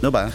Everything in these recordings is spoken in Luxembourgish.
Minutten op 8.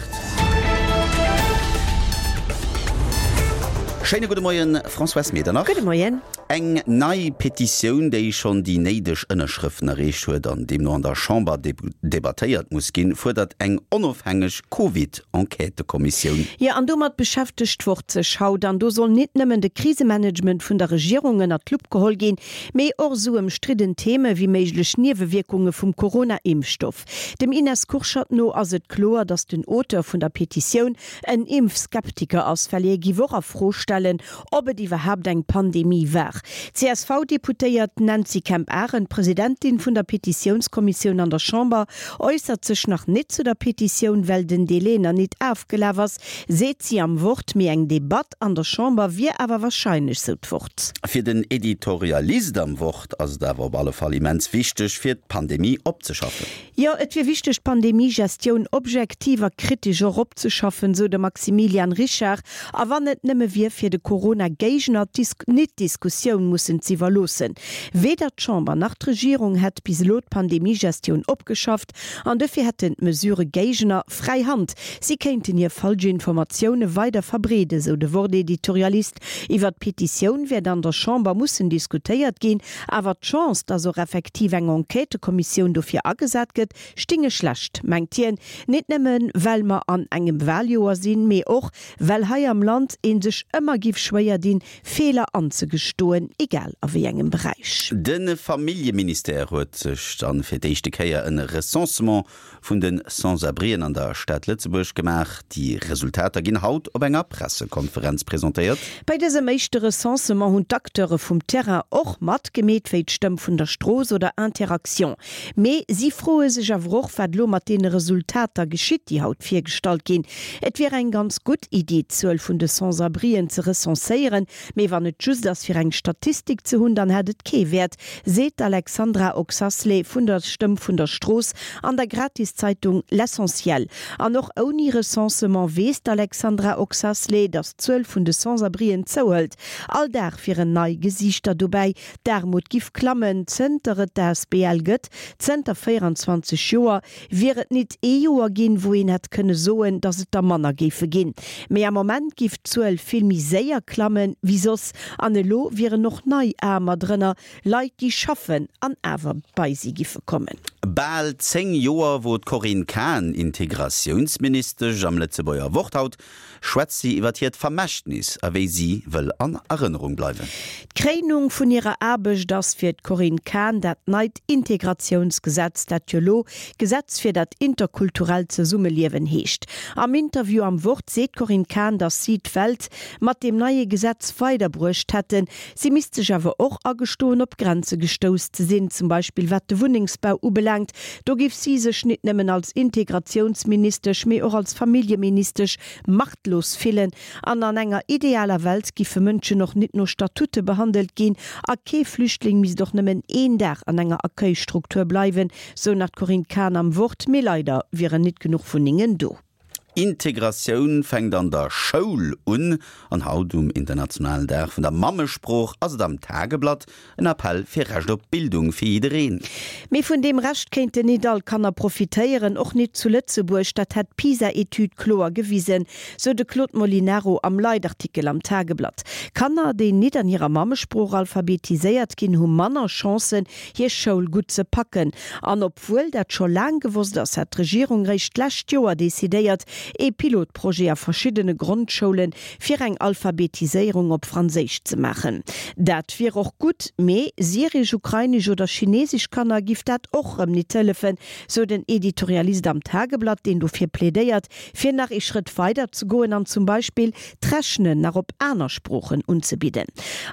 Schéine gudde Moien, Françoise Medernach. Gudde Moien. Eng nei Petitioun, déi schonn déi néideg Ënnerschrëften erreecht huet an deemno an der Chamber debattéiert muss ginn, fuerdert eng onofhängeg Covid-Enquêtëkommissioun. Jo, an domat beschäftegt d'Wort sech haut. An do soll nit nëmmen de Krisemanagement vun der Regierung ënnert d'Lupp geholl ginn, mee och esou ëmstridden Theme wéi méiglech Niewewierkunge vum Corona-Impfstoff. Dem Ines Kurschat no ass et kloer, datt den Auteur vun der Petitioun en Impfskeptiker ass, well hie giff och a Fro stellen, ob et iwwerhaapt eng Pandemie war. D'CSV-Deputéiert Nancy Kemp-Arendt, Presidentin vun der Petitiounskommissioun an der Chamber, äussert sech nach nit zu der Petitioun, well den Delai nach nit afgelaf ass, seet si am Wort. Mee eng Debatt an der Chamber wier awer warscheinlech, sou d'Wort. Fir den Editorialist am Wort ass et awer op alle Fall immens wichteg, fir d'Pandemie opzeschaffen. Jo, et wier wichteg, d'Pandemie-Gestioun objektiv a kritesch och opzeschaffen, sou de Maximilian Richard. A wann et nëmme wier, fir de Corona-Géigner d'Dis-nit-Diskussioun mussen z'iwwerloossen. Weder d'Chamber nach d'Regierung hätt bis elo d'Pandemie-Gestioun opgeschafft an dofir hätten d'Mesurë-Géigner fräi Hand. Si kéinten hir falsch Informatioune weider verbreeden, sou de Wort-Editorialist. Iwwer d'Petitioun wäert an der Chamber mussen diskutéiert ginn, awer d'Chance, datt och effektiv eng Enquêtëkommissioun dofir agesat gëtt, stinge schlecht, mengt hien. Nit nëmmen, well mer an engem Waljoer sinn, mee och, well hei am Land ee sech ëmmer giff schwéier dinn, Feeler anzegestoen, egal a wéi engem Beräich. De Familljeministère huet sech dann fir d'éischte Kéier en Recensement vun de Sans-abrien an der Stad Lëtzebuerg gemaach. Déi Resultater ginn haut op enger Pressekonferenz presentéiert. Bei dësem éischte Recensement hunn d'Acteure vum Terrain och matgemeet, wéi d'Stëmm vun der Strooss oder Interaction. Mee si froe sech awer och, wat elo mat deene Resultater geschitt, déi haut virgestallt ginn. Et wier eng ganz gutt Iddi, d'Zuel vun de Sans-abrien ze recenséieren, Mee wann et just ass fir eng Statistik ze hunn, dann hätt et kee Wäert, seet d'Alexandra Oxasley vun der Stëmm vun der Strooss an der Gratiszeitung L'Essentiel. An och ouni Recensement weess d'Alexandra Oxasley, datt d'Zuel vun de Sans-abrien zouhëlt. All Dag wieren nei Gesiichter dobäi. D'Aarmut giff klammen, zënter et d'ASBL gëtt, zënter 24 Joer. Wier et nit ee Joer ginn, wou een hätt kënne soen, datt et der manner géife ginn. Mee am Moment giff d'Zuel vill méi séier klamme wéi soss. An elo wieren och nei Aarmer drënner, Leit, déi schaffen an awer bei si giffe kommen. Bal 10 Joer wor d'Corinne Cahen Integratiounsministesch. Am Lëtzebuerger Wort haut schwätzt si iwwer hiert Vermächtnis a wéi si wëll an Erënnerung bleiwen. D'Kréinung vun hirer Aarbecht ass fir d'Corinne Cahen dat neit Integratiounsgesetz, dat jo lo Gesetz fir dat interkulturellt Zesummeliewen heescht. Am Interview am Wort seet d'Corinne Cahen, datt si d'Welt mat deem neie Gesetz weiderbruecht hätten. Si misst sech awer och agestoen, op Grenze gestouss ze sinn, zum Beispill wat de Wunnengsbau ubelaangt. Do géif si sech nit nëmmen als Integratiounsministesch, mee och als Familljeministesch machtlos fillen. An an enger idealer Welt giffe Mënschen och nit no Statute behandelt ginn a kee Flüchtling misst och nëmmen een Dag an enger Accueilstruktur bleiwen, sou nach d'Corinne Cahen am Wort. Mee leider wieren nit genuch Wunnengen do. Integratioun fänkt an der Schoul un an haut um internationalen Dag vun der Mammesprooch ass et am Tageblatt en Appell fir Recht op Bildung fir jiddereen. Mee vun deem Recht kéinten nit all Kanner profitéieren, och nit zu Lëtzebuerg. Dat hätt d'PISA-Etüd kloer gewisen, sou de Claude Molinaro am Leitartikel am Tageblatt. Kanner, déi nit an hirer Mammesprooch alphabetiséiert ginn, hu manner Chancen, hir Schoul gutt ze packen. An obwuel dat scho laang gewosst ass, hat d'Regierung réischt d'lescht Joer decidéiert, ee Pilotprojet a verschiddene Grondschoule fir eng Alphabetiséierung op Franséisch ze maachen. Dat wier och gutt, mee syresch, ukrainesch oder chinesesch Kanner giff dat och rëm nit hëllefen, sou den Editorialist am Tageblatt, deen dofir plädéiert, fir nach ee Schrëtt weider ze goen an zum Beispill d'Rechnen nach op aner Sproochen unzebidden.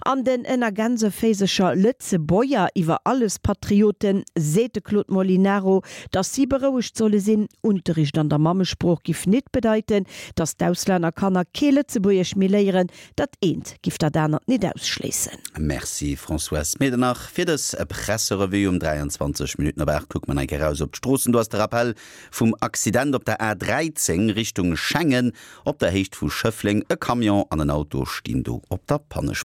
An den ënner Gänseféisercher Lëtzebuerger iwwer alles Patrioten seet de Claude Molinaro, datt si berouegt solle sinn, Unterricht an der Mammesprooch giff nit bedeiten, datt d'Auslännerkanner kee Lëtzebuergesch méi léieren. Dat eent giff dat anert nit ausschléissen. Merci Françoise Medernach fir dës Presserevue. Um 23 Minutten op 8 kucke mer nach eng Kéier eraus op d'Stroossen. Do ass de Rappell vum Accident op der A13 Richtung Schengen. Op der Héicht vu Schëffleng, e Camion an en Auto stinn do op der Pannespuer.